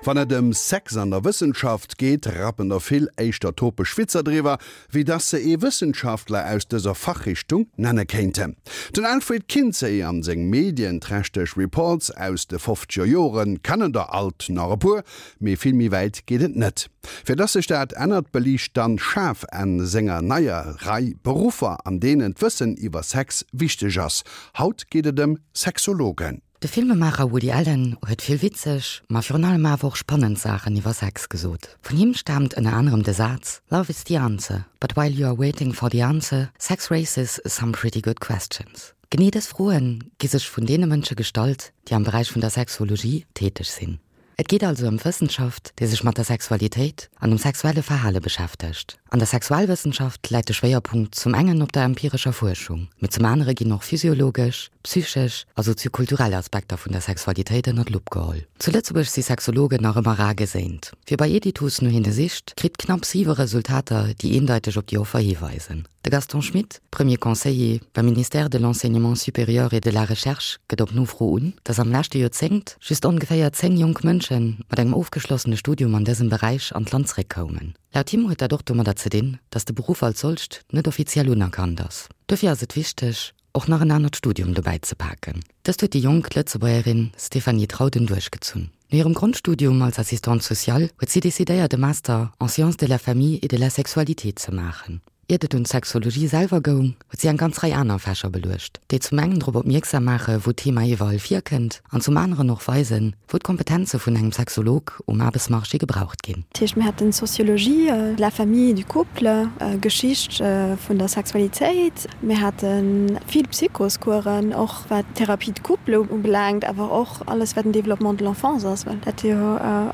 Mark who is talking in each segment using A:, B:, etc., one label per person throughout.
A: Wann et ëm Sex an der Wëssenschaft geet, rappen der vill éischter topesch Witzer driwwer, wéi dass se ee Wëssenschaftler aus dëser Fachrichtung nenne kéinten. Den Alfred Kinsey an seng medienträchteg Reports aus de fofzeger Jore kennen der alt nach e puer, mee vill méi wäit geet et net. Fir dass sech dat ännert, beliicht d'Anne Schaaf an senger neier Rei Beruffer, an deenen d'Wëssen iwwer Sex wichteg ass. Haut geet et ëm Sexologen.
B: De Filmemaacher Woody Allen huet vill witzeg, ma virun allem awer och spannend Saachen iwwer Sex gesot. Vun him staamt ënner anerem de Saz, Love is the answer, but while you are waiting for the answer, sex raises some pretty good questions. Genee dës Froe gi sech vun deene Mënsche gestallt, déi am Beräich vun der Sexologie täteg sinn. Et geet also ëm d'Wëssenschaft, déi sech mat der Sexualitéit an dem sexuelle Verhale beschäftegt. An der Sexualwëssenschaft läit de Schwéierpunkt zum engen op der empirescher Fuerschung, mee zum anere ginn och physiologesch, psychesch a soziokulturell Aspekter vun der Sexualitéit ënner d'Lupp geholl. Zu Lëtzebuerg si Sexologen nach ëmmer rar geséint. Wie bei Editus no hinne sicht, kritt knapp siwe Resultater, déi eendeiteg op déi Offer hiweisen. De Gaston Schmit, Premier Conseiller beim Ministère de l'Enseignement supérieur et de la Recherche, gëtt op Nofro un, datt am leschte Joerzéngt just ongeféier 10 jonk Mënsche mat engem ofgeschlossene Studium an dësem Beräich an d'Land zeréckkoumen. Laut him huet dat och domadder ze dinn, datt de Beruff als solcht net offiziell unerkannt ass. Dofir ass et wichteg, och nach en anert Studium dobäi ze paken. Dëst huet déi jonk Lëtzebuergerin Stéphanie Trauden duerchgezunn. No hirem Grondstudium als Assistante sociale huet si decidéiert e Master en sciences de la famille et de la sexualité ze maachen. Iert et un d'Sexologie selwer goung, huet si eng ganz Rei aner Fächer beluecht, déi zum engen drop opmierksam maache wou d'Thema iwwerall virkënnt an zum aneren och weisen, wou d'Kompetenze vun engem Sexolog um Aarbechtsmarché gebraucht ginn.
C: Dat heescht, mir haten Sociologie de la famille et du couple, Geschicht vun der Sexualitéit, mir hate vill Psychoscoursen, och wat d'Thérapie de couple ubelaangt, awer och alles wat den Développement de l'enfance ass, well dat jo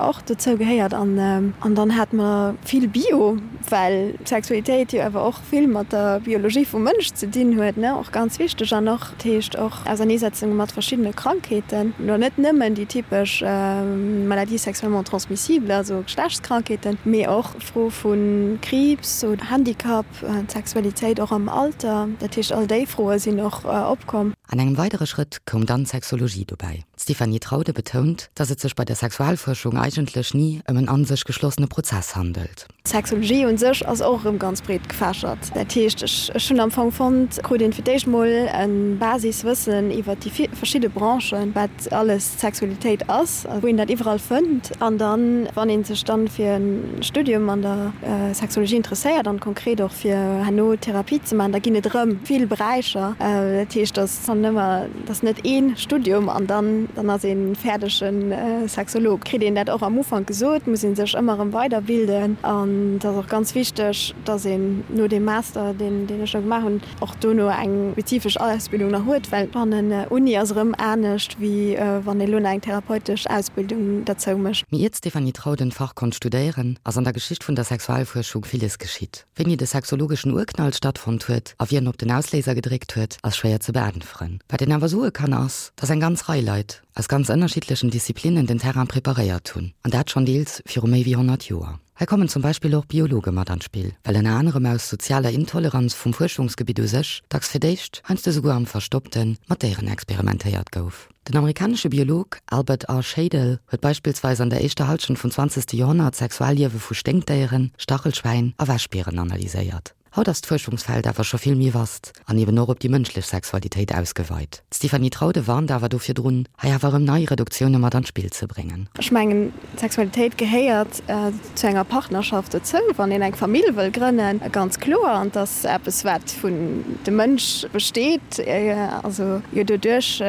C: och dozou gehéiert. An dann hate mer vill Bio. Well d'Sexualitéit jo awer och vill mat der Biologie vum Mënsch ze dinn huet, ne, och ganz wichteg, an och, dat heescht och Auserneesetzunge mat verschiddene Krankheeten, elo net nëmmen déi typesch Maladies sexuellement transmissibles, also Geschlechtskrankheeten, mee och Fro vu Kriibs oder Handicap, d'Sexualitéit och am Alter, dat heescht all déi Froe sinn och opkomm.
B: An engem weidere Schrëtt koum dann d'Sexologie dobäi. D'Stéphanie Traude betount, datt et sech bei der Sexualfuerschung eigentlech ni ëm en an sech geschlossene Prozess handelt.
C: D'Sexologie un sech ass och erëm ganz breet gefächert. Dat heescht, ech ech hunn am Fong fonnt, krut een fir d'éischt mol e Basiswëssen iwwert déi verschidde Branchen, wat alles d'Sexualitéit ass a wou een dat iwwerall fënnt. An dann, wann ee sech dann fir e Studium an der Sexologie interesséiert an konkret och fir herno Therapie ze maachen, da ginn et erëm vill Beräicher. Dat heescht, dass dann ëmmer Et ass net ee Studium an dann dann ass ee fäerdege Sexolog. Kritt een dat och am Ufank gesot, muss ee sech ëmmer erëm weiderbilden. An et ass och ganz wichteg, datt een no deem Master, deen deen ech da gemaach hunn, och dono eng spezifesch Ausbildung nach huet, well fannen Uni ass erëm anescht, wéi wann ee lo nach eng therapeutesch Ausbildung derzou mécht.
B: Mee iert d'Stéphanie Trauden d'Fach konnt studéieren, ass an der Geschicht vun der Sexualfuerschung villes geschitt. Wéini de sexologeschen Urknall stattfonnt huet a wien op den Ausléiser gedréckt huet, ass schwéier ze beäntweren. Wat een awer soe kann ass, dass eng ganz Rei Leit aus ganz ënnerschiddlechen Disziplinnen den Terrain preparéiert hunn, an dat schonn deels viru méi wéi 100 Joer. Hei kommen zum Beispill och Biologe mat an d'Spill, well ënner anerem aus sozialer Intoleranz vum Fuerschungsgebitt u sech dacks fir d'éischt, heiansdo souguer am Verstoppten, mat Déieren experimentéiert gouf. Den amerikanesche Biolog Albert R. Schadle huet beispillsweis an der éischter Hallschent vum zwanzegste Joerhonnert d'Sexualliewe vu Sténkdéieren, Stachelschwäin a Wäschbieren analyséiert. Haut ass d'Fuerschungsfeld awer scho vill méi vast an eben och op déi mënschlech Sexualitéit ausgeweit. D'Stéphanie Traude warnt awer do virdrun, hei awer erëm nei Reduktioune mat an d'Spill ze bréngen.
C: Ech mengen, d'Sexualitéit gehéiert zu enger Partnerschaft dozou, wann een eng Famill wëll grënnen, ganz kloer. An et ass eppes, wat vun dem Mënsch besteet, also jo doduerch,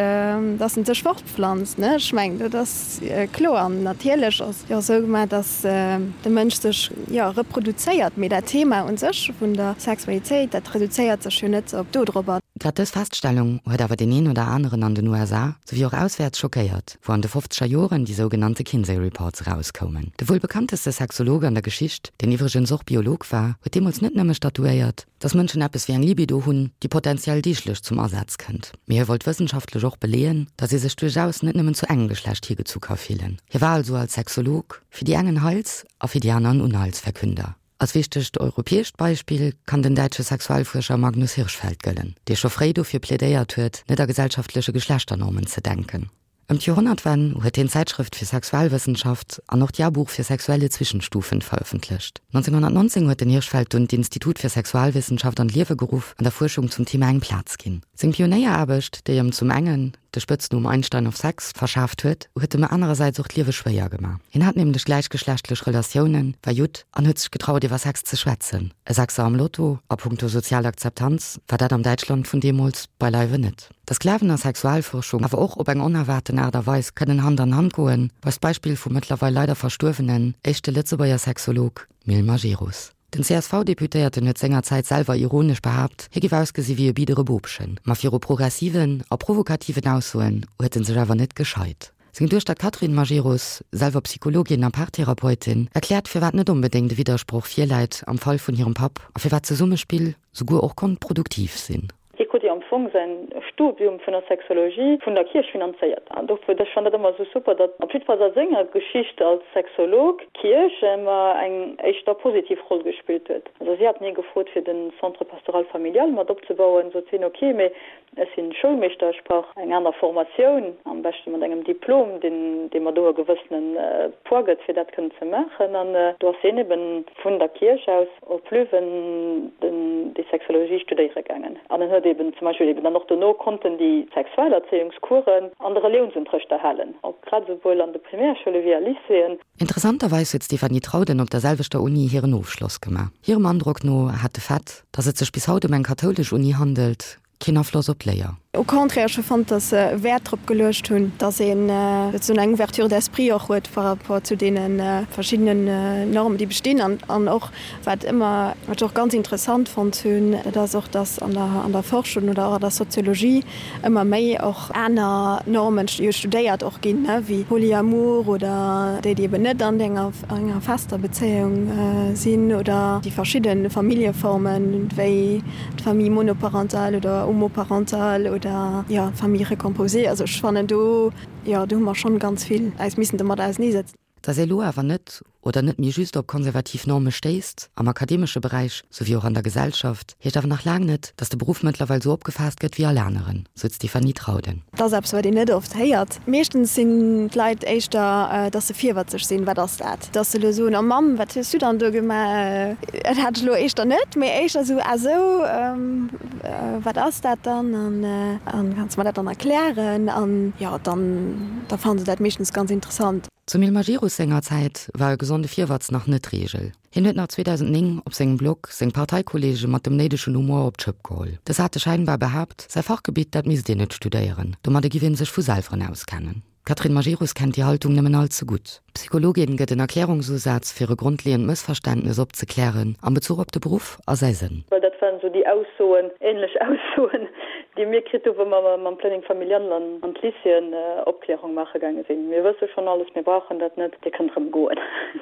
C: datt en sech fortpflanzt, ne. Ech mengen, dat ass kloer. An natierlech ass et jo och esou gemaach, datt de Mënsch sech, jo, reproduzéiert. Mee dat Thema u sech vun der Sexualitéit, dat reduzéiert sech jo net op dodropper.
B: Grad dës Feststellung huet awer deen een oder aneren an den USA, souwéi och auswäerts schockéiert. wou an de fofzeger Joren déi sougenannte Kinsey Reports erauskoumen. De wuel bekannteste Sexolog an der Geschicht, deen iwwregens och Biolog war, huet deemools net nëmme statuéiert, dass Mënschen eppes wéi eng Libido hunn, déi potentiell deeglech zum Asaz kënnt, mee hie wollt wëssenschaftlech och beleeën, dass ee sech duerchaus net nëmmen zu engem Geschlecht higezu ka fillen. Hie war also als Sexolog fir déi eng en Heils a fir déi aner en Unheilsverkünder. Als wichtegt europäescht Beispill kann den däitsche Sexualfuerscher Magnus Hirschfeld gëllen, dee scho fréi dofir plädéiert huet, net a gesellschaftleche Geschlechternormen ze denken. Ëm d'Joerhonnertwenn huet hien d'Zäitschrëft fir Sexualwëssenschaft an och d'Jahrbuch für sexuelle Zwischenstufen verëffentlecht. 1919 huet den Hirschfeld dunn d'Institut fir Sexualwissenschaft an d'Liewe geruff an der Fuerschung zum Thema eng Plaz ginn. Seng Pionéieraarbecht, déi ëm zum engen de Spëtznumm Einstein of Sex verschaaft huet, huet em anerersäits och d'Liewe schwéier gemaach. Hien hat nämlech gläichgeschlechtlech Relatiounen, war Judd an huet sech getraut iwwer Sex ze schwätzen. E Sechser am Lotto a punkto sozial Akzeptanz war dat am Däitschland vun deemools beileiwe net. Dass Glawen a Sexualforschung awer och op eng onerwaarten Aart a Weis kënnen Hand an Hand goen, weist d'Beispill vum mëttlerweil leider verstuerwenen éischte Lëtzebuerger Sexolog Mil Majerus. Den CSV-Deputéierten huet sengerzäit selwer ironesch behaapt, hie géif ausgesi wéi e biddere Bobchen. Ma viru progressiven a provokativen Aussoen huet en sech awer net gescheit. Seng Duechter d'Catherine Majerus, selwer Psychologin a Paartherapeutin, erkläert firwat net onbedéngt e Widdersproch virläit am Fall vun hirem Papp a firwat Zesummespill souguer och konnt produktiv sinn.
D: Hie krut jo am Fong säin Studium vun der Sexologie vun der Kierch finanzéiert. An dofir, ech fannen dat ëmmer esou super, datt op jiddefalls a senger Geschicht als Sexolog d'Kierch ëmmer eng éischter positiv Roll gespillt huet. Also si haten hie gefrot fir den Centre pastoral familial mat opzebauen, sot hien, ok, mee ech sinn Schoulmeeschter, ech brauch eng aner Formatioun, am beschte mat engem Diplom, deen dee mer do e gewëssene Poids gëtt fir dat kënnen ze maachen. An do ass hien eben vun der Kierch aus op Leuven den déi Sexologie studéiere gaangen an en huet eben zum Beispill eben dann och dono konnten déi Sexualerzéiungskueren an de Reliounsunterrecht erhalen, och grad esouwuel an de Primärschoule wéi a Lycéeën.
B: Interessanterweis huet d'Stéphanie Trauden op der selwechter Uni hiren Ofschloss gemaach. Hirem Androck no hat de Fait, datt et sech bis haut ëm eng kathoulesch Uni handelt, Keen Afloss op d'Léier.
C: Au contraire, ech hu fonnt, datt se Wäert drop geluecht hunn, datt een souzesoen eng Ouverture d'esprit och huet par rapport zu deene verschiddenen Normen, déi bestinn. An och, wat ëmmer, wat ech och ganz interessant fonnt hunn, dat ass och, datt an der, an der Forschung oder och an der Soziologie ëmmer méi och aner Normen jo studéiert och ginn, wéi Polyamour oder déi, déi eben net an enger, enger fester Bezéiung sinn oder déi verschidde Familljeformen, wéi d'Famille monoparentale oder homoparentale oder, jo, d'Famille recomposée. Also ech fannen do, jo, do hu mer schonn ganz vill äis missen domat auseneesetzen.
B: Dass ee lo awer net oder net méi just op konservativ Norme stéisst, am akademesche Beräich souwéi och an der Gesellschaft, heescht awer nach laang net, dass de Beruff mëttlerweil sou opgefaasst gëtt wéi all aneren, sou d'Stéphanie Trauden.
C: Dat ass eppes, wat een net oft héiert. Meeschtens sinn d'Leit éischter, dass se virwëtzeg sinn, Wat ass dat? Dass se elo soen, Oh Mamm, wat hues du dann do gemaach? Dat hat ech elo éischter net, mee éischter esou, Ah sou, wat ass dat dann? An kanns de mer dat dann erklären? An jo, dann da fannen se dat meeschtens ganz interessant.
B: Zum Ilmar Girus senger Zäit war e gesonde Virwatz nach net d'Reegel. Hien huet nach 2009 op sengem Blog seng Parteikollege mat dem néidegen Humor op d'Schëpp geholl. Dës hate scheinbar behaapt, säi Fachgebitt, dat misst een net studéieren, domadde giff ee sech vu selweren auskennen. D'Catherine Majerus kennt déi Haltung nëmmen all ze gutt. D'Psychologin gëtt en Erklärungsusaz fir e grondleeënd Mëssverständnes opzeklären am Bezuch op de Beruff a säi Sënn.
D: Well dat waren esou déi Aussoen, ähnlech Aussoen, déi mir kritt hu wou mer mam Planning familial an d'Lycéeën Opklärung maache gaange sinn. Mir wësse schonn alles, mir brauchen dat net, Dir kënnt erëm goen.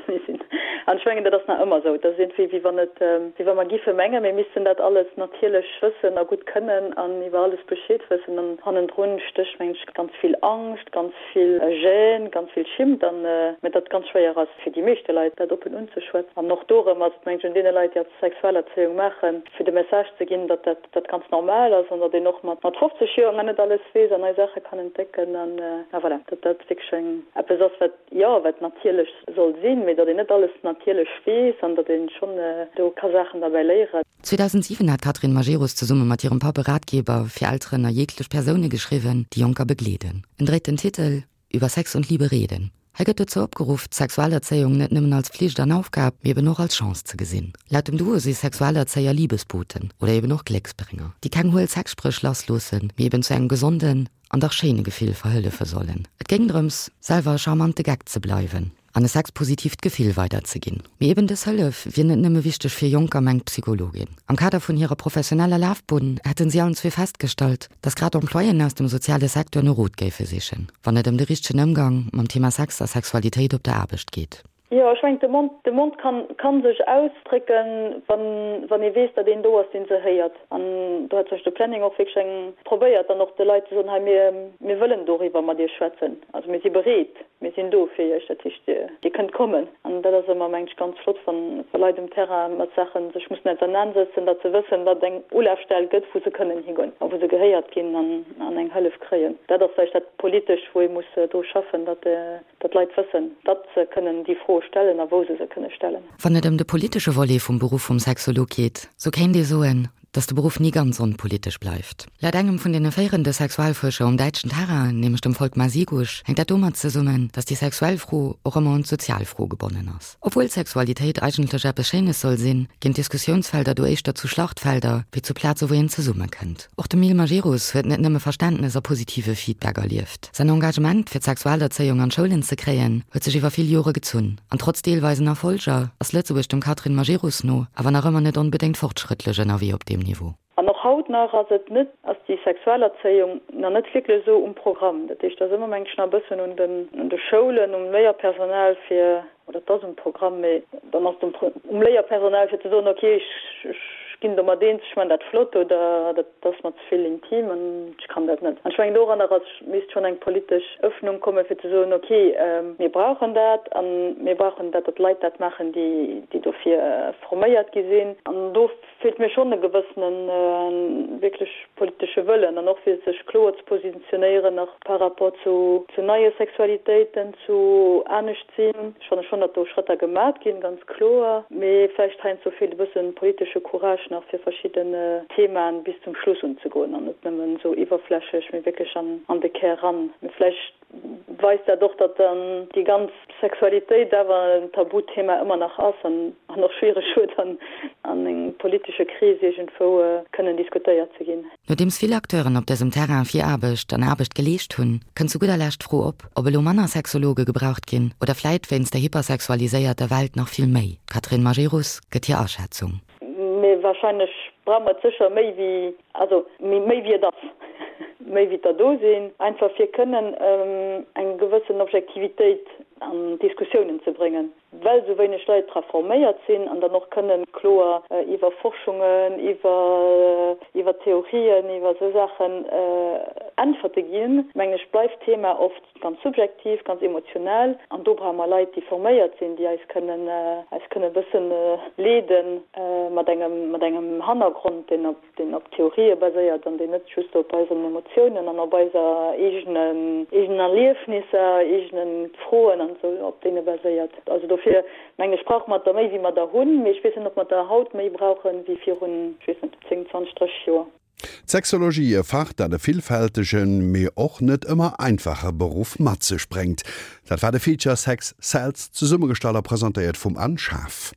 D: Mir sinn, an ech mengen, dat ass nach ëmmer esou, dat ass iergendwéi wéi wann et, wéi wa mer giffe mengen, mir missten dat alles natierlech wëssen a gutt kënnen an iwwer alles Bescheed wëssen. An hannendrun stécht, mengen ech, ganz vill Angscht, ganz vill Gêne, ganz vill Schimmt an, mä datt et ganz schwéier ass fir déi meeschte Leit, dat oppen unzeschwätzen. An och dorëm ass et, mengen ech, un deene Leit, déi als Sexualerzéiung maachen, fir de Message ze ginn, datt dat, dat ganz normal ass an datt een och mat 50 Joer nach net alles weess an nei Saache kann entdecken an, voilà, datt dat wierklech eng, eppes ass, wat, jo, wat natierlech soll sinn, mee datt een net alles natierlech weess an datt ee schonn do ka Saachen derbäi léieren.
B: 2007 hat d'Catherine Majerus zesumme mat hirem Papp e Ratgeber fir Elteren a jeeglech Persoune geschriwwen, déi Jonker begleeden. En dréit den Titel Über Sex und Liebe reden. Hei gëtt dozou opgeruff, d'Sexualerzéiung net nëmmen als Flicht an Aufgab, mee eben och als Chance ze gesinn. Laut dem Duo si Sexualerzéier Liebesboten oder eben och Glécksbrénger, déi keng huel Sexspréch lassloossen, mee eben zu engem gesonden an dach schéine Gefill verhëllefe sollen. Et géing drëms, selwer e charmante Geck ze bleiwen an e sexpositiivt Gefill weiderzeginn. Mee eben dës Hëllef wier net nëmme wichteg fir Jonker, mengt d'Psychologin. Am Kader vun hirer professioneller Lafbunn hätten si allen zwee festgestallt, dass grad Employéen aus dem soziale Secteur no Rot géife sichen, wann et ëm de richtegen Ëmgang mam Thema Sex a Sexualitéit op der Aarbecht geet.
D: Jo, ech mengen, de Mond, de Mond kann, kann sech ausdrécken, wann, wann ee weess, datt een do ass, deen se héiert. An do hat zum Beispill de Planning och wierklech eng, probéiert dann och de Leit ze soen, hei mir, mir wëllen doriwwer mat Iech schwätzen, also mir si bereet. Mir sinn do fir Iech, dat heescht, Dir kënnt kommen. An dat ass ëmmer, mengen ech, ganz flott, wann Leit um Terrain mat Saache sech mussen ausernansetzen, datt se wëssen, datt et eng Ulafstell gëtt, wou se kënnen higoen a wou se gehéiert ginn an eng Hëllef kréien. Dat ass vläicht dat Politescht, wou ee muss dru schaffen, datt d'Leit wëssen, datt se kënnen déi Froe stellen a wou se se kënne stellen.
B: Wann et ëm de politesche Volet vum Beruff vum Sexolog geet, sou kéint ee soen, dass de Beruff ni ganz onpolitesch bleift. Laut engem vun deene féierende Sexualfuerscher um däitschen Terrain, nämlech dem Volkmar Sigusch, hänkt dat domat zesummen, dass déi sexuell Fro och ëmmer un d'sozial Fro gebonnen ass. Obwuel Sexualitéit eigentlech eppes Schéines soll sinn, ginn d'Diskussiounsfelder do éischter zu Schlachtfelder, wéi zu Plaze wou een zesummekënnt. Och de Mil Majerus huet net nëmme Verständnes a positive Feedback erlieft. Säin Engagement, fir d'Sexualerzéiung an d'Schoulen ze kréien, huet sech iwwer vill Jore gezunn. An trotz deelweisen Erfolger ass Lëtzebuerg dem Catherine Majerus no awer nach ëmmer net onbedéngt fortschrëttlech ënnerwee op deem Niveau.
D: An och haut nach ass et net, ass déi Sexualerzéiung nach net wierklech esou um Programm. Dat heescht, et ass ëmmer, mengen ech, nach e bëssen un den, un de Schoulen, um Léierpersonal fir, oder et ass um Programm, mee dann ass et um, um Léierpersonal fir ze soen, okay, ech, ech ginn domat eens, ech man dat flott oder dat ass mer ze vill intim an ech kann dat net. An ech mengen, doranner ass, misst schonn eng politesch Öffnung komme fir ze soen, okay, mir brauchen dat a mir brauchen dat, datt Leit dat maachen, déi, déi dofir forméiert gi sinn. An do feelt mir schonn e gewëssene wierklech politesche Wëllen an och fir sech kloer ze positionéieren nach par rapport zu zu neie Sexualitéiten, zu anescht sinn. Ech fanne schonn, datt do Schrëtter gemat ginn, ganz kloer, mee vläicht heiansdo feelt e bësse politesche Courage nach fir verschidden Themaen bis zum Schluss unzegoen an net nëmmen esou iwwerflächlech, mee wierklech an an de Kär ran. Mee vläicht weist dat och, datt dann déi ganz Sexualitéit awer en Tabuthema ëmmer nach ass an och schwiereg huet, an engem politesche Krees iergendwou kënnen diskutéiert ze ginn.
B: Nodeems vill Acteuren op dësem Terrain Viraarbecht an Aarbecht geleescht hunn, kënnt zu gudder Lescht d'Fro op, ob elo manner Sexologe gebraucht ginn oder vläit wéinst der hypersexualiséierter Welt nach vill méi. D'Catherine Majerus gëtt hir Aschätzung.
D: Mee wahrscheinlech brauche mer et sécher méi wéi, also méi wéi et ass, méi wéi der do sinn, einfach fir kënnen eng gewëssen Objektivitéit an d'Diskussiounen ze bréngen, well esou wéineg Leit dra forméiert sinn an dann och kënnen kloer iwwer Forschungen, iwwer iwwer Theorien, iwwer esou Saachen Äntwerte ginn, mengen ech, bleift d'Thema oft Ganz subjektiv, ganz emotional. An do brauche mer Leit, déi forméiert sinn, déi eis kënnen, eis kënnen e bëssen leeden mat engem, mat engem Hannergrond, deen op, deen op Theorië baséiert an deen net just op eisen Emotiounen an op eiser eegenen, eegenen Erliefnisser, eegene Froen an esou, op deene baséiert. Also dofir mengen ech, brauche mer der méi, wéi mer der hunn. Mee ech weess net, ob mer der haut méi brauchen, wéi virun, ech weess net, 10, 20, 30 Joer.
A: D'Sexologie, e Fach, dat e villfältegen, mee och net ëmmer einfache Beruff mat sech bréngt. Dat war de Feature Sex Sells, zesummegestallt a presentéiert vum Anne Schaaf.